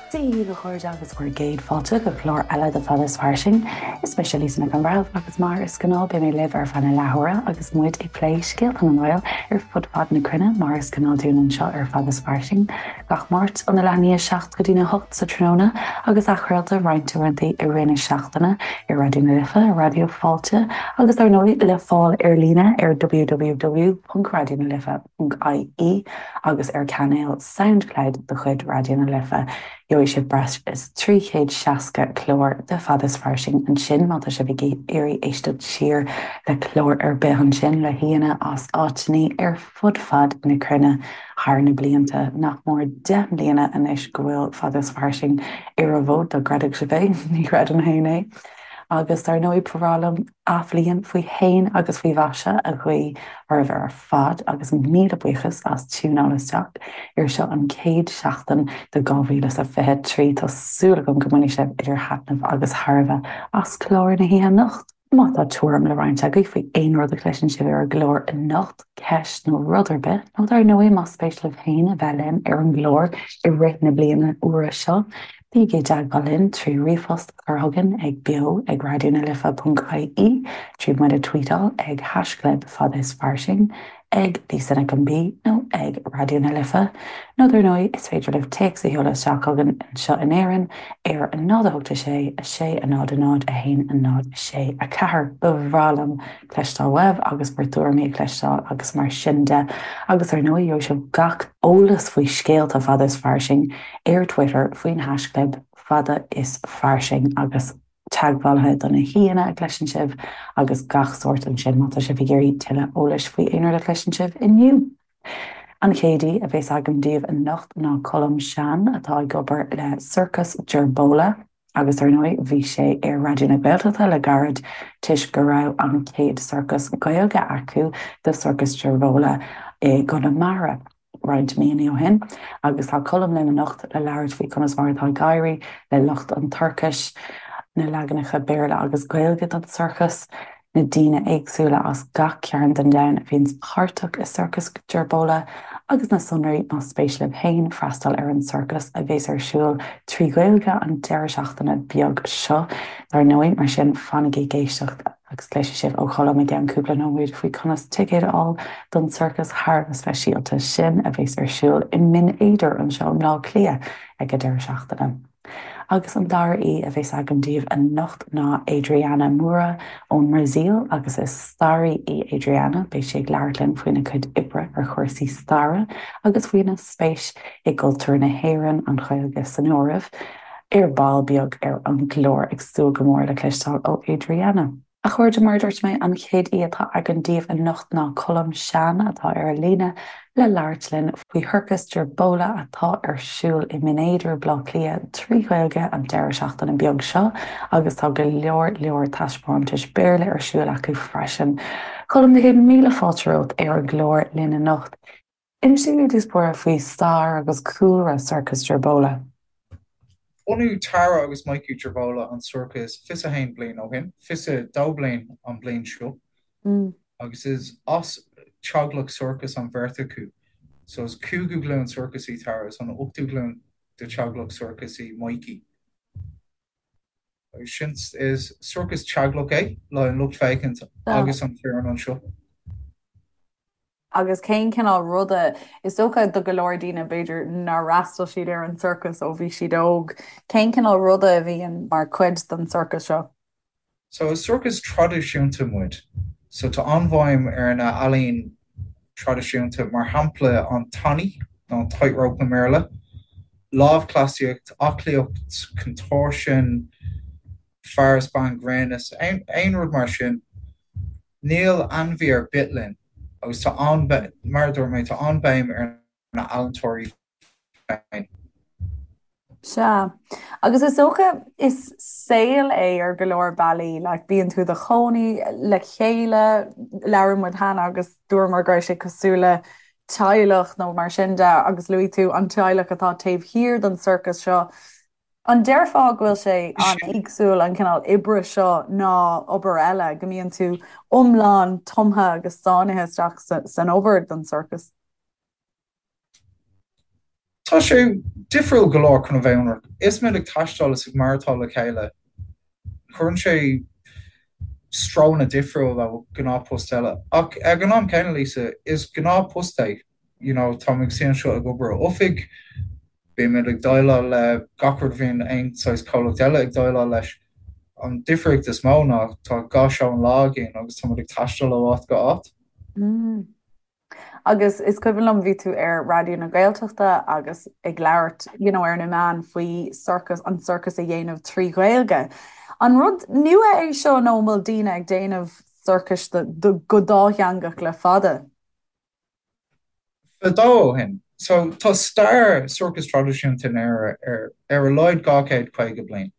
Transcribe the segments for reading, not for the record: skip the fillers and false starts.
Dia dhaoibh a chairde agus bhur gcéad fáilte go clár eile de Fada is Fairsing. Is mise Lisa Nic an Bhreithimh agus mar is gnáth beidh mé libh ar feadh na leathuaire agus muid ag plé scéalta na nGael ar fud fad na cruinne mar is gnáth dúinn anseo ar Fada is Fairsing gach Máirt óna leath i ndiaidh 7 go dtína 8 sa tráthnóna agus athchraolta roinnt uaireanta i rith na seachtaine ar Raidió na Life, Raidió Fáilte agus dar ndóigh le fáil ar líne ar www.raidionalife. ie agus ar chainéal Soundcloud de chuid Raidió na Life. Gheobhaidh sibh breis is 360 clár de Fada is Fairsing ansin má tá sibh ag iarraidh éisteacht siar le clár ar bith ansin le haíonna as áiteanna ar fud fad na cruinne thar na blianta. Nach mór 10 mbliana anois go bhfuil Fada is Fairsing ar an bhfód, dá gcreidfeadh sibh é, ní chreidim féin é. Agus dar ndóigh ba bhreá liom Athbhliain faoi shéan agus faoi mhaise a ghuí oraibh ar fad agus míle buíochas as tiúnáil isteach ar seo an chéad seachtain de 2023. Tá súil agam go mbainfidh sibh idir thaitneamh agus thairbhe as clár na hoíche anocht. Má tá tuairim le roinnt agaibh faoi aon rud a chloiseann sibh ar an gclár anocht, ceist nó rud ar bith, nó dar ndóigh más spéis libh féin a bheith linn ar an gclár i rith na bliana úire seo, Bígí i dteagmháil linn trí ríomhphost a chur chugainn ag beo ag raidionalife.ie, trí muid a tweetáil ag haischlib fada is fairsing, ag Lisa Nic an B nó ag Raidió na Life. Nó dar ndóigh is féidir libh téacs a sheoladh isteach chugainn anseo in Éirinn ar 0 8 6 6 0 0 1 0 6 4. Ba bhreá liom cloisteáil uaibh agus bhur dtuairimí a chloisteáil agus mar sin de. Agus ar ndóigh gheobhaidh sibh gach eolas faoi scéalta fada is fairsing ar Twitter faoin haischlib fada is fairsing agus teagmhálaithe do na haíonna a chloiseann sibh agus gach sórt ansin má tá sibh ag iarraidh tuilleadh eolais faoi aon rud a chloiseann sibh inniu. An chéad aoi a bheas agam daoibh anocht ná Colm Sean atá ag obair le Sorcas Gerbola agus ar ndóigh bhí sé ar Raidió na Gaeltachta le gairid toisc go raibh an chéad sorcas Gaeilge acu do Sorcas Gerbola i gConamara. roinnt míonna ó shin agus tá Colm linn anocht le labhairt faoi conas mar atá ag éirí le lucht an tsorcais, na leaganacha Béarla agus Gaeilge don sorcas, na daoine éagsúla as gach cearn den domhan a bhíonns páirteach i Sorcas Gerbola agus na sonraí más spéis libh féin freastal ar an sorcas a bheas ar siúl trí Ghaeilge an deireadh seachtaine beag seo dar ndóigh, mar sin fanaigí ag éisteacht. Agus cloisfidh sibh ó Cholm i gceann cúpla nóiméad faoi conas ticéad a fháil don sorcas thar a bheith speisialta sin a bheas ar siúl i mBinn Éadair anseo i mBleá Cliath ag an deireadh seachtaine. Agus an dara aoi a bheas agam daoibh anocht ná Adriana Moura ón mBrasaíl agus is staraí í Adriana. Beidh sí ag labhairt linn faoina cuid oibre ar chúrsaí staire agus faoina spéis i gcultúr na hÉireann, an Ghaeilge san áireamh. Ar ball beag ar an gclár, ag súil go mór le cloisteáil ó Adriana. A chairde, mar a dúirt mé, an chéad aoi atá againn daoibh anocht ná Colm Sean atá ar an líne le labhairt linn faoi Shorcas Gerbola atá ar siúl i mBinn Éadair, Baile Átha Cliath, trí Ghaeilge an deireadh seachtaine beag seo agus tá go leor leor taispeántais Béarla ar siúl acu freisin. Colm, na céad míle fáilte romhat ar an gclár linn anocht. Inis dúinn ar dtús báire faoi stair agus cúlra Sorcas Gerbola. Bhunaigh Tara agus Mikey Gerbola an sorcas 21 bliain ó shin, 22 bliain an bhliain seo, agus is as teaghlach sorcais an bheirt acu. So is cúigiú glúin sorcais í Tara is an ochtú glúin de teaghlach sorcais í Mikey. Agus sin, is sorcas teaghlach é le an lucht féachana agus an foireann anseo. Agus cén cineál ruda, is dócha do go leor daoine b'fhéidir nár fhreastail siad ar an sorcas ó bhí siad óg, cén cineál ruda a bhíonn mar chuid den sorcas seo? So is sorcas traidisiúnta muid. So tá an-bhéim ar na ealaín traidisiúnta, mar shampla an tanaí, nó an tightrope i mBéarla, lámhchleasaíocht, aclaíocht, contortion, fear is bean grinn is aon rud mar sin. Níl ainmhí ar bith linn agus tá an, mar a dúirt mé, tá an-bhéim ar na healaíontóirí féin. Sea. Agus is dócha is saol é ar go leor bealaí, like bíonn tú i do chónaí le chéile, labhair muid cheana agus dúramar go raibh sé cosúil le teaghlach nó mar sin de agus luaigh tú an teaghlach atá taobh thiar den sorcas seo. An déarfá go bhfuil sé an-éagsúil an cineál oibre seo ná obair eile, go mbíonn tú iomlán tumtha agus sáinnithe isteach san obair don sorcas? Tá sé difriúil go leor chun a bheith ionraic. Is muid ag taisteal is ag maireachtáil le chéile, cuireann sé strónna difriúil ó ghnáthphost eile. Ach ag an am céanna, Lisa, is gnáthphost é. You know, táim ag suí anseo ag obair ó oifig, bímid ag déileáil le gach rud a bhíonn aon saghas comhlacht eile ag déileáil leis. An difríocht is mó ná tá 2 seó an lá againn agus táimid ag taisteal ó áit go áit. Agus is cuimhin liom bhí tú ar Raidió na Gaeltachta agus ag labhairt you know, ar na meáin faoi sorcas, an sorcas a dhéanamh trí Ghaeilge. An rud nua é seo nó an bhfuil daoine ag déanamh sorcais go dátheangach le fada? Fadó ó shin. So tá stair sorcas traidisiúnta in Éire ar ar a laghad 250 bliain.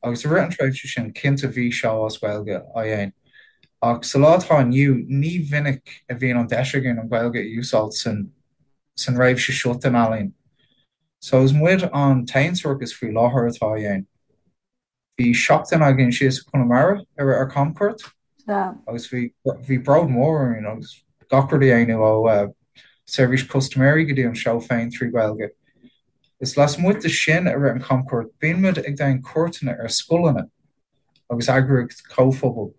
Agus i rith an tréimhse sin, cinnte bhí seó as Gaeilge á dhéanamh. Ach sa lá atá inniu, ní mhinic a bhíonn an deis againn an Ghaeilge a úsáid san san réimse seo den ealaín. So is muid an t-aon sorcas faoi láthair atá á dhéanamh. Bhí seachtain againn síos i Conamara i rith ár camchuairt agus bhí bhí bród mór orainn agus gach rud a dhéanamh ó seirbhís custaiméirí go dtí an seó féin trí Ghaeilge. Is lasmuigh de sin i rith an chamchuairt bíonn muid ag déanamh cuairteanna ar scoileanna agus eagraíocht comhphobail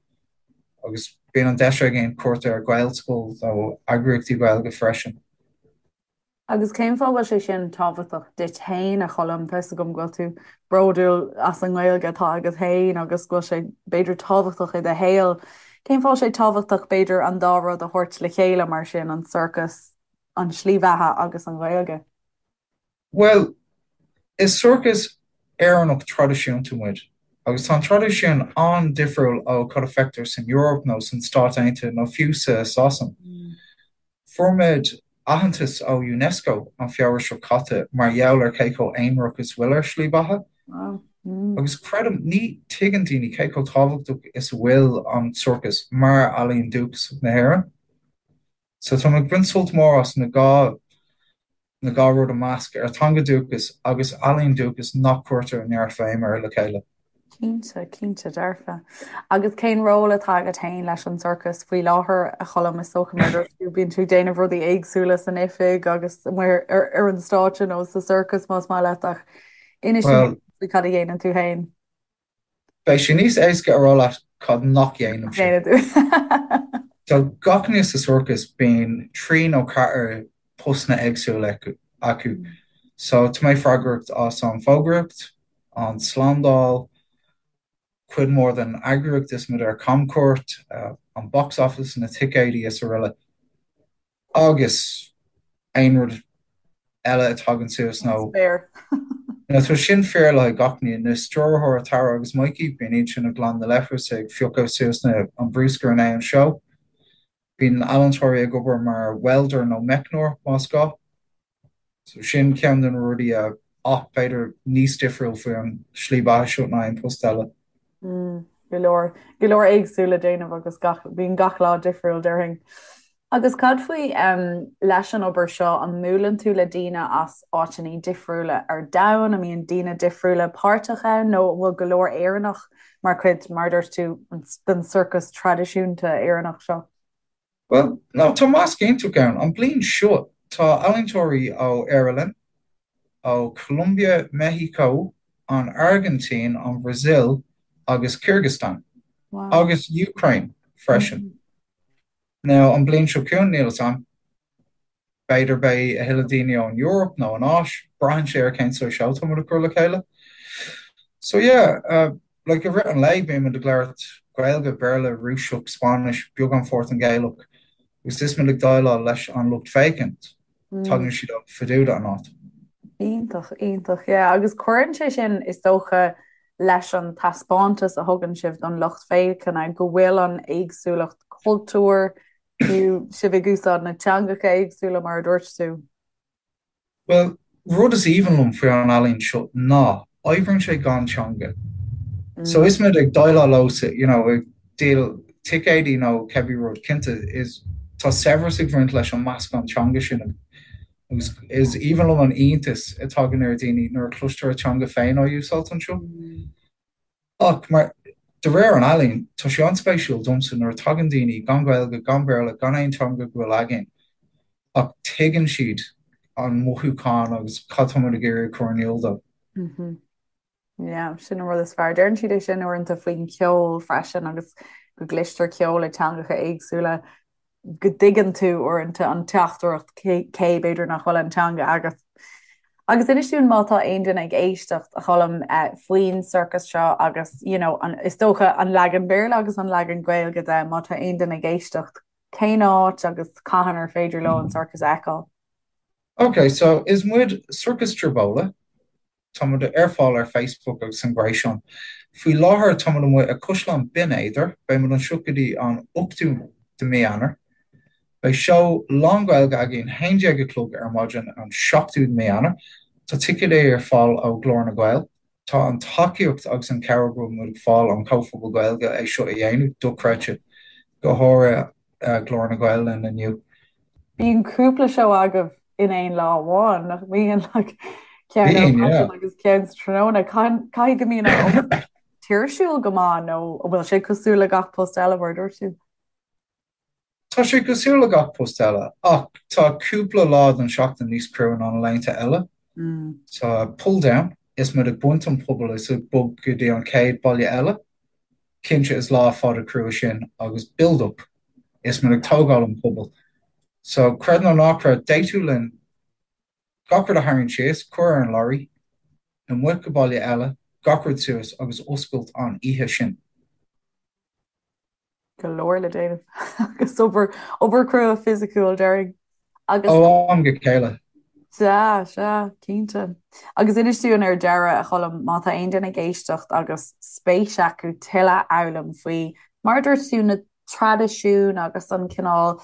agus bíonn an deis againn cuairt ar Ghaelscoil nó eagraíochtaí Gaeilge freisin. Agus cén fáth a bhfuil sé sin tábhachtach duit féin, a Choilm? Tá 'fhios agam go bhfuil tú bródúil as an nGaeilge atá agat féin agus go bhfuil sé, b'fhéidir, tábhachtach i do shaol. Cén fáth a bhfuil sé tábhachtach, b'fhéidir, an dá rud a thabhairt le chéile mar sin, an sorcas, an tslí bheatha agus an Ghaeilge? Bhuel, is sorcas Éireannach traidisiúnta muid, agus tá an traidisiún an-difriúil ó cad a feictear san Eoraip nó san Stáit Aontaithe nó fiú sa Sasain. Fuair muid aitheantas ó Unesco an Feabhra seo caite mar gheall ar cé chomh aonarach is bhfuil ár slí beatha. Agus creidim, ní tuigeann daoine cé chomh tábhachtach is a bhfuil an sorcas mar ealaíon dúchasach na hÉireann. So tá mé ag baint sult mór as na dhá na dhá rud a measc, ár teanga dúchas agus ealaíon dúchas nach cuirtear neart bhéim air le chéile. Cinnte, cinnte dearfa. Agus cén ról atá agat féin leis an sorcas faoi láthair, a Choilm? Is dócha mar dúirt tú, bíonn tú ag déanamh rudaí éagsúla san oifig agus amuigh ar, ar an stáitse nó sa sorcas más maith leat ach inis dúinn faoi cad a dhéanann tú féin. Beidh sé níos éasca a rá leat cad nach dhéanaimse. So gach duine sa sorcas bíonn 3 nó 4 postanna éagsúla acu. So tá mé freagrach as an fógraíocht, an slándáil, cuid mhór den eagraíocht is muid ar camchuairt, an box office, na ticéidí is araile. Agus aon rud eile a tagann suas nó nó tá sin fíor le haghaidh gach duine, na stiúrthóirí Tara agus Mikey, bíonn iad sin ag glanadh na leithreas, ag piocadh suas na an bruscar i ndiaidh an seó. Bíonn ealaíontóirí ag obair mar welder nó meicneoir más gá. So sin ceann de na rudaí a ach b'fhéidir níos difriúil faoi an slí beatha seo ná aon post eile. Mm, go leor, go leor éagsúil le déanamh agus gach, bíonn gach lá difriúil déarfainn. Agus cad faoi um, leis an obair seo, an mbuaileann tú le daoine as áiteanna difriúla ar domhan, an mbíonn daoine difriúla páirteach ann nó an bhfuil go leor Éireannach mar chuid, mar a dúirt tú, den sorcas traidisiúnta Éireannach seo? Bhuel, no, tá measc iontach ann. An bliain seo, tá ealaíontóirí ó Éire linn, ó Colombia, Meicsiceo, an Airgintín, an Bhrasaíl agus Kyrgyzstan. Wow. Agus Ukraine freisin. Now, an bliain seo chugainn, níl fhios a'm. B'fhéidir beidh a thuilleadh daoine ón Eoraip nó an Áis, braitheann sé ar cén saghas seó tá muid ag cur le chéile. So yeah, uh, like i rith an lae bíonn muid ag labhairt Gaeilge, Béarla, Rúiseach, Spáinnis, beagán Portaingéalach agus is muid ag déileáil leis an lucht féachaint, tagann siad ó fud an áit. Iontach, iontach, yeah. Agus cuireann sé sin, is dócha, leis an taispeántas a thugann sibh don lucht féachana, go bhfuil an éagsúlacht cultúir, fiú sibh ag úsáid na teangacha éagsúla mar a dúirt tú. Bhuel, rud is aoibhinn liom faoi an ealaín seo ná, oibríonn sé gan teanga. So is muid ag déileáil leo sa, you know, ag díol ticéidí nó cibé rud, cinnte, is, tá saibhreas ag bhaint leis an meascán teanga sin agus is aoibhinn liom an iontas a tagann ar dhaoine nuair a cloistear a teanga féin á úsáid anseo. Ach mar, de réir an ealaín, tá sé an-spéisiúil domsa nuair a tagann daoine gan Gaeilge, gan Béarla, gan aon teanga go bhfuil againn, ach tuigeann siad. an mothúchán agus cad tá muid ag iarraidh a chur in iúl dó. Yeah, sin an rud is fearr. Deireann siad é sin uaireanta faoin cheol freisin agus go gcloistear ceol i dteangacha éagsúla, go dtuigeann tú uaireanta an teachtaireacht cé b'fhéidir nach bhfuil an teanga agat. Agus inis dúinn má tá aon duine ag éisteacht, a Choilm, faoin sorcas seo agus, you know, an, is dócha an leagan Béarla agus an leagan Gaeilge de, má tá aon duine ag éisteacht, cén áit agus cathain ar féidir leo an sorcas a fheiceáil? Ok, so is muid Sorcas Gerbola, Tá muid ar fáil ar Facebook agus an gréasán. Faoi láthair tá muid amuigh i Caisleán Binn Éadair. Beidh muid anseo go dtí an 8ú de mí Eanáir. Beidh seó lán-Ghaeilge againn 11 a chlog ar maidin an 7ú de mí Eanáir. Tá ticéidí ar fáil ó Ghlór na nGael. Tá an tacaíocht agus an cabhair go bhfuil muid ag fáil ón chomhphobal Gaeilge é seo a dhéanamh dochreidte, go háirithe Glór na nGael linn inniu. Bíonn cúpla seó agaibh in aon lá amháin, nach mbíonn? Like, ceann ar maidin agus ceann sa tráthnóna. Caithfidh go mbíonn an obair tuirsiúil go maith nó an bhfuil sé cosúil le gach post eile mar a dúirt tú? Tá sé cosúil le gach post eile, ach tá cúpla lá den seachtain níos crua ná na laethanta eile. Tá pull down, is muid ag baint an puball is ag bog go dtí an chéad baile eile. Cinnte is lá fada crua sin agus build up, is muid ag tógáil an puball. So, creid nó ná creid, d'fhéadfadh linn gach rud a tharraingt síos, cur ar an lorry, amuigh go baile eile, gach rud suas agus oscailt an oíche sin. Go leor le déanamh agus obair, obair crua fisiciúil, déarfainn. Agus. Ó am go chéile. Sea, sea, cinnte. Agus inis dúinn ar deireadh, a Choilm, má tá aon duine ag éisteacht agus spéis acu tuilleadh a fhoghlaim faoi, mar a dúirt tú, na traidisiúin agus an cineál,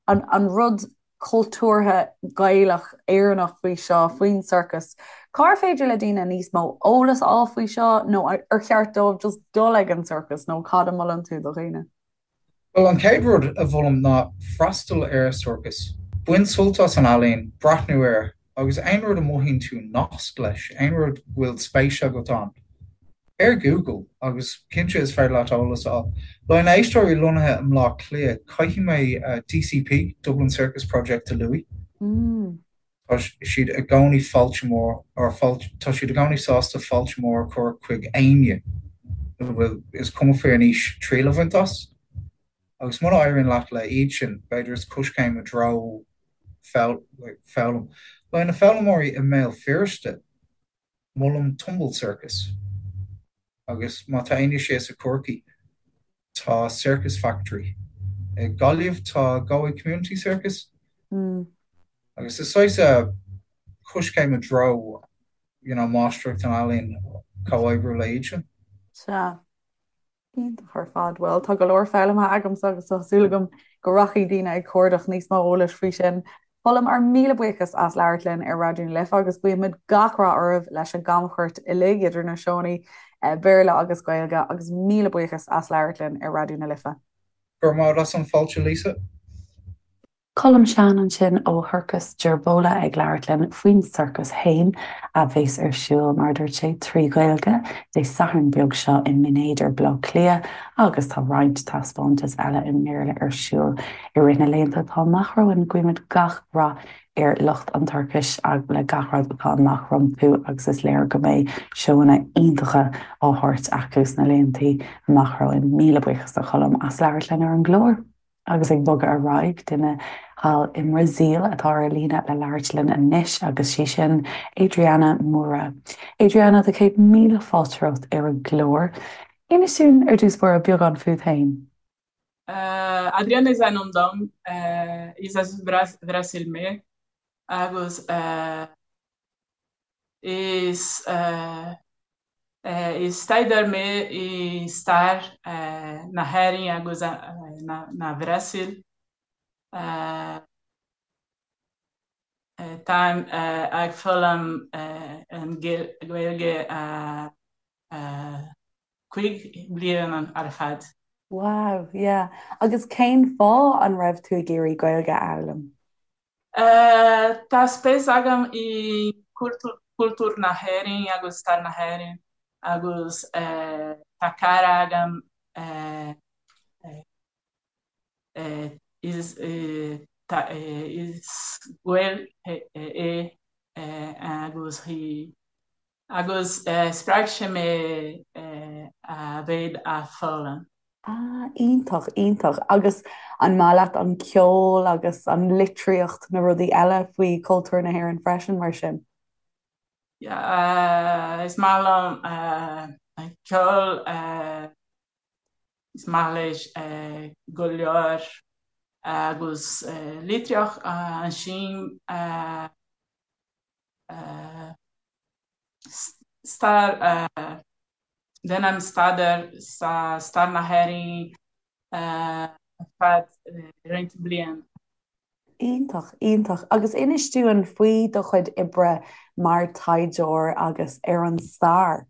an, an rud cultúrtha Gaelach, Éireannach faoi seo, faoin sorcas, cár féidir le daoine níos mó eolas a fháil faoi seo nó ar cheart dóibh just dul ag an sorcas nó cad a mholann tú do dhaoine? Bhuel, an chéad rud a mholaim ná freastal ar sorcas. Bain sult as an ealaín, breathnú air, agus aon rud a mothaíonn tú nasc leis, aon rud go bhfuil spéis agat ann, ar Google, agus cinnte is féidir leat eolas a fháil. Le haghaidh na éisteoirí lonnaithe i mBleá Cliath, caithfidh mé DCP, Dublin Circus Project, a luaigh. Tá siad i gcónaí fáilte mór, or fáilte, tá siad i gcónaí sásta fáilte mór a chur chuig éinne a bhfuil, is cuma faoin aois, triail a bhaint as. Agus muna éiríonn leat le iad sin, b'fhéidir is coiscéim i dtreo foghlaim. Le haghaidh na foghlaimeoirí i mBéal Feirste, molaim Tumble Circus. Agus má tá éinne síos i Corcaigh, tá Circus Factory. I Gaillimh tá Galway Community Circus. Agus is saghas coiscéim i dtreo, you know, máistreacht an ealaín, comhoibriú le iad sin. Sea. Iontach ar fad. Bhuel, tá go leor foghlamtha agamsa agus tá súil agam go rachaidh daoine ag cuardach níos mó eolais faoi sin. Colm, ár míle buíochas as labhairt linn ar Raidió na Life agus guímid gach rath oraibh leis an gcamchuairt uilig idir na seónna Béarla agus Gaeilge agus míle buíochas as labhairt linn ar Raidió na Life. Go raibh maith agat as an fáilte, Lisa. Colm Sean ansin ó Shorcas Gerbola ag labhairt linn faoin sorcas féin a bheas ar siúl, mar a dúirt sé, trí Ghaeilge, Dé Sathairn beag seo i mBinn Éadair, Baile Átha Cliath agus tá roinnt taispeántas eile i mBéarla ar siúl i rith na laethanta atá amach romhainn. Guímid gach rath ar lucht an tsorcais le gach rud atá amach rompu agus is léir go mbeidh seóanna iontacha á thabhairt acu sna laethanta amach romhainn. Míle buíochas do Cholm as labhairt linn ar an gclár. Agus ag bogadh ar aghaidh, duine thall i mBrasaíl atá ar líne le labhairt linn anois agus sí sin Adriana Moura. Adriana, tá 100,000 fáilte romhat ar an gclár. Inis dúinn ar dtús báire beagán fút féin. Adriana is ainm dom, is as Brasil mé agus is Is staidéar mé i stair na hÉireann agus na Bhrasaíl. Táim ag foghlaim an Ghaeilge 5 bliana ar fad. Wow, yeah. Agus cén fáth an raibh tú ag iarraidh Gaeilge a fhoghlaim? Tá spéis agam i cultúr na hÉireann agus stair na hÉireann agus tá cara agam is. Is Gael é agus í agus spreag sé mé a bheith a foghlaim. Ah, iontach, iontach. Agus an maith leat an ceol agus an litríocht, na rudaí eile faoi chultúr na hÉireann freisin, mar sin? Yeah, is maith liom an ceol, is maith leis go leor agus litríocht ansin stair, déanaim staidéar sa stair na hÉireann ar feadh roinnt bliain. Iontach, iontach. Agus inis dúinn faoi do chuid oibre mar taighdeoir agus ar an stair.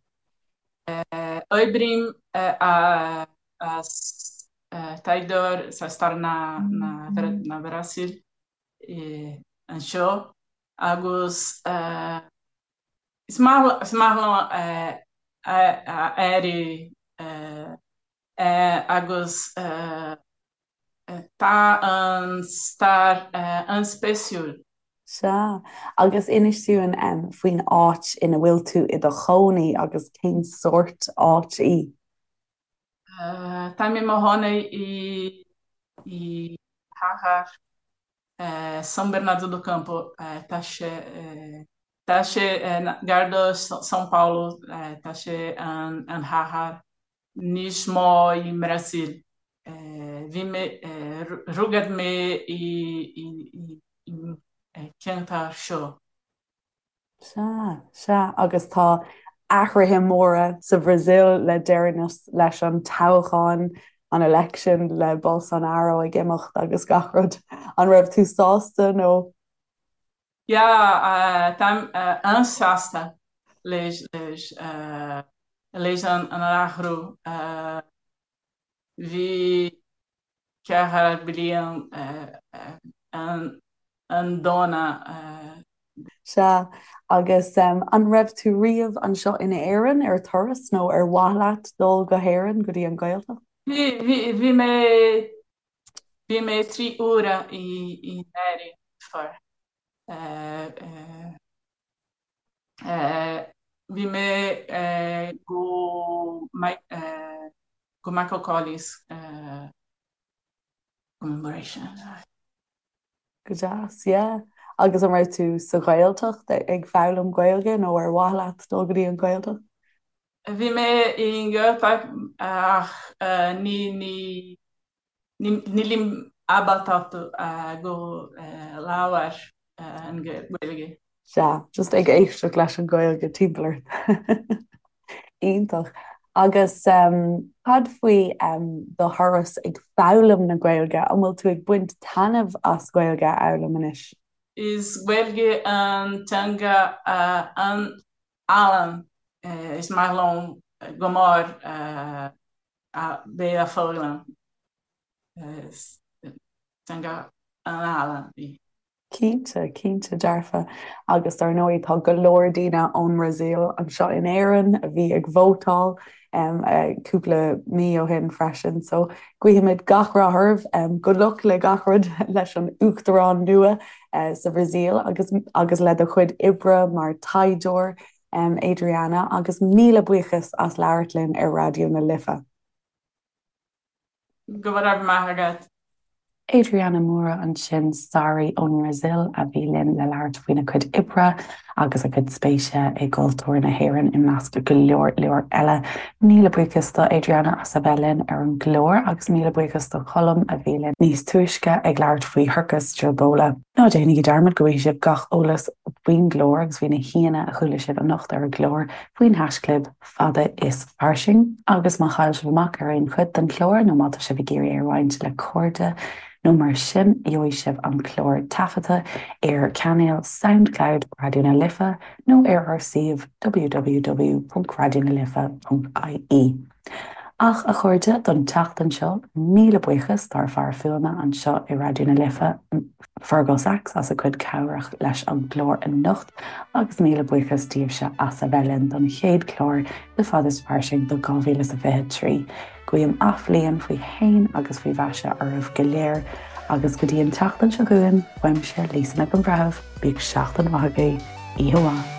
Oibrím as taighdeoir sa stair na Brasaíle anseo agus is maith liom a éirí agus tá an stair an-spéisiúil. Sea. Agus inis dúinn faoin áit ina bhfuil tú i do chónaí agus cén sórt áit í? Táim i mo chónaí i chathair São Bernardo do Campo. Tá sé tá sé gar do São Paulo, tá sé an chathair níos mó i mBrasaíl. Bhí mé rugadh mé i ceantar seo. Sea, sea, agus tá athruithe móra sa Bhrasaíl le deireanas leis an toghchán, an election, le Bolsonaro ag imeacht agus gach rud. An raibh tú sásta nó? Yeah, táim an-sásta leis leis an athrú. Bhí 4 bliain an-dona. Sea, agus an raibh tú riamh anseo in Éirinn ar turas nó ar mhaith leat dul go hÉirinn, go dtí an Ghaeltacht? Bhí, bhí mé, bhí mé 3 uaire in Éirinn before. Bhí mé go go Michael Collins commemoration. Go deas, yeah. Agus an raibh tú sa Ghaeltacht ag foghlaim Gaeilge nó ar mhaith leat dul go dtí an Ghaeltacht? Bhí mé i nGaeltacht ach ní ní Nílim ábalta go labhair an Ghaeilge. Sea, just ag éisteacht leis an Ghaeilge timpeall ort. Iontach. Agus cad faoi do thuras ag foghlaim na Gaeilge? An bhfuil tú ag baint taitneamh as Gaeilge a fhoghlaim anois? Is Gaeilge an teanga an-álainn. Is maith liom go mór a bheith a foghlaim. Is teanga an-álainn í. Cinnte, cinnte dearfa. Agus dar ndóigh tá go leor daoine ón mBrasaíl anseo in Éirinn a bhí ag vótáil cúpla mí ó shin freisin. So guímid gach rath oraibh. Good luck le gach rud leis an uachtarán nua sa Bhrasaíl agus agus le do chuid oibre mar taighdeoir Adriana, agus míle buíochas as labhairt linn ar Raidió na Life. Go raibh maith agat. Adriana Moura ansin, staraí ón mBrasaíl a bhí linn le labhairt faoina cuid oibre agus a cuid spéise i gcultúr na hÉireann i measc go leor leor eile. Míle buíochas do Adriana as a bheith linn ar an gclár agus míle buíochas do Cholm a bhí linn níos túisce ag labhairt faoi Shorcas Gilbola. Ná déanaigí dearmad go bhfaighidh sibh gach eolas faoin gclár agus faoi na haíonna a chuala sibh anocht ar an gclár faoin haisclib Fada is Fairsing. Agus má chaill sibh amach ar aon chuid den chlár nó má tá sibh ag iarraidh é a roinnt le cairde nó mar sin, gheobhaidh sibh an clár taifeadta ar chainéal Soundcloud Raidió na Life nó ar ár suíomh www.raidionalife.ie. Ach, a chairde, don tseachtain seo, míle buíochas dár bhfear fuaime anseo i Raidió na Life, Fergal Sachs, as a chuid cabhrach leis an gclár anocht, agus míle buíochas daoibhse as a bheith linn don chéad chlár de Fada is Fairsing do 2023. Guím athbhliain faoi shéan agus faoi mhaise oraibh go léir. Agus go dtí an tseachtain seo chugainn, uaimse, Lisa Nic an Bhreithimh, bíodh seachtain mhaith agaibh, oíche mhaith.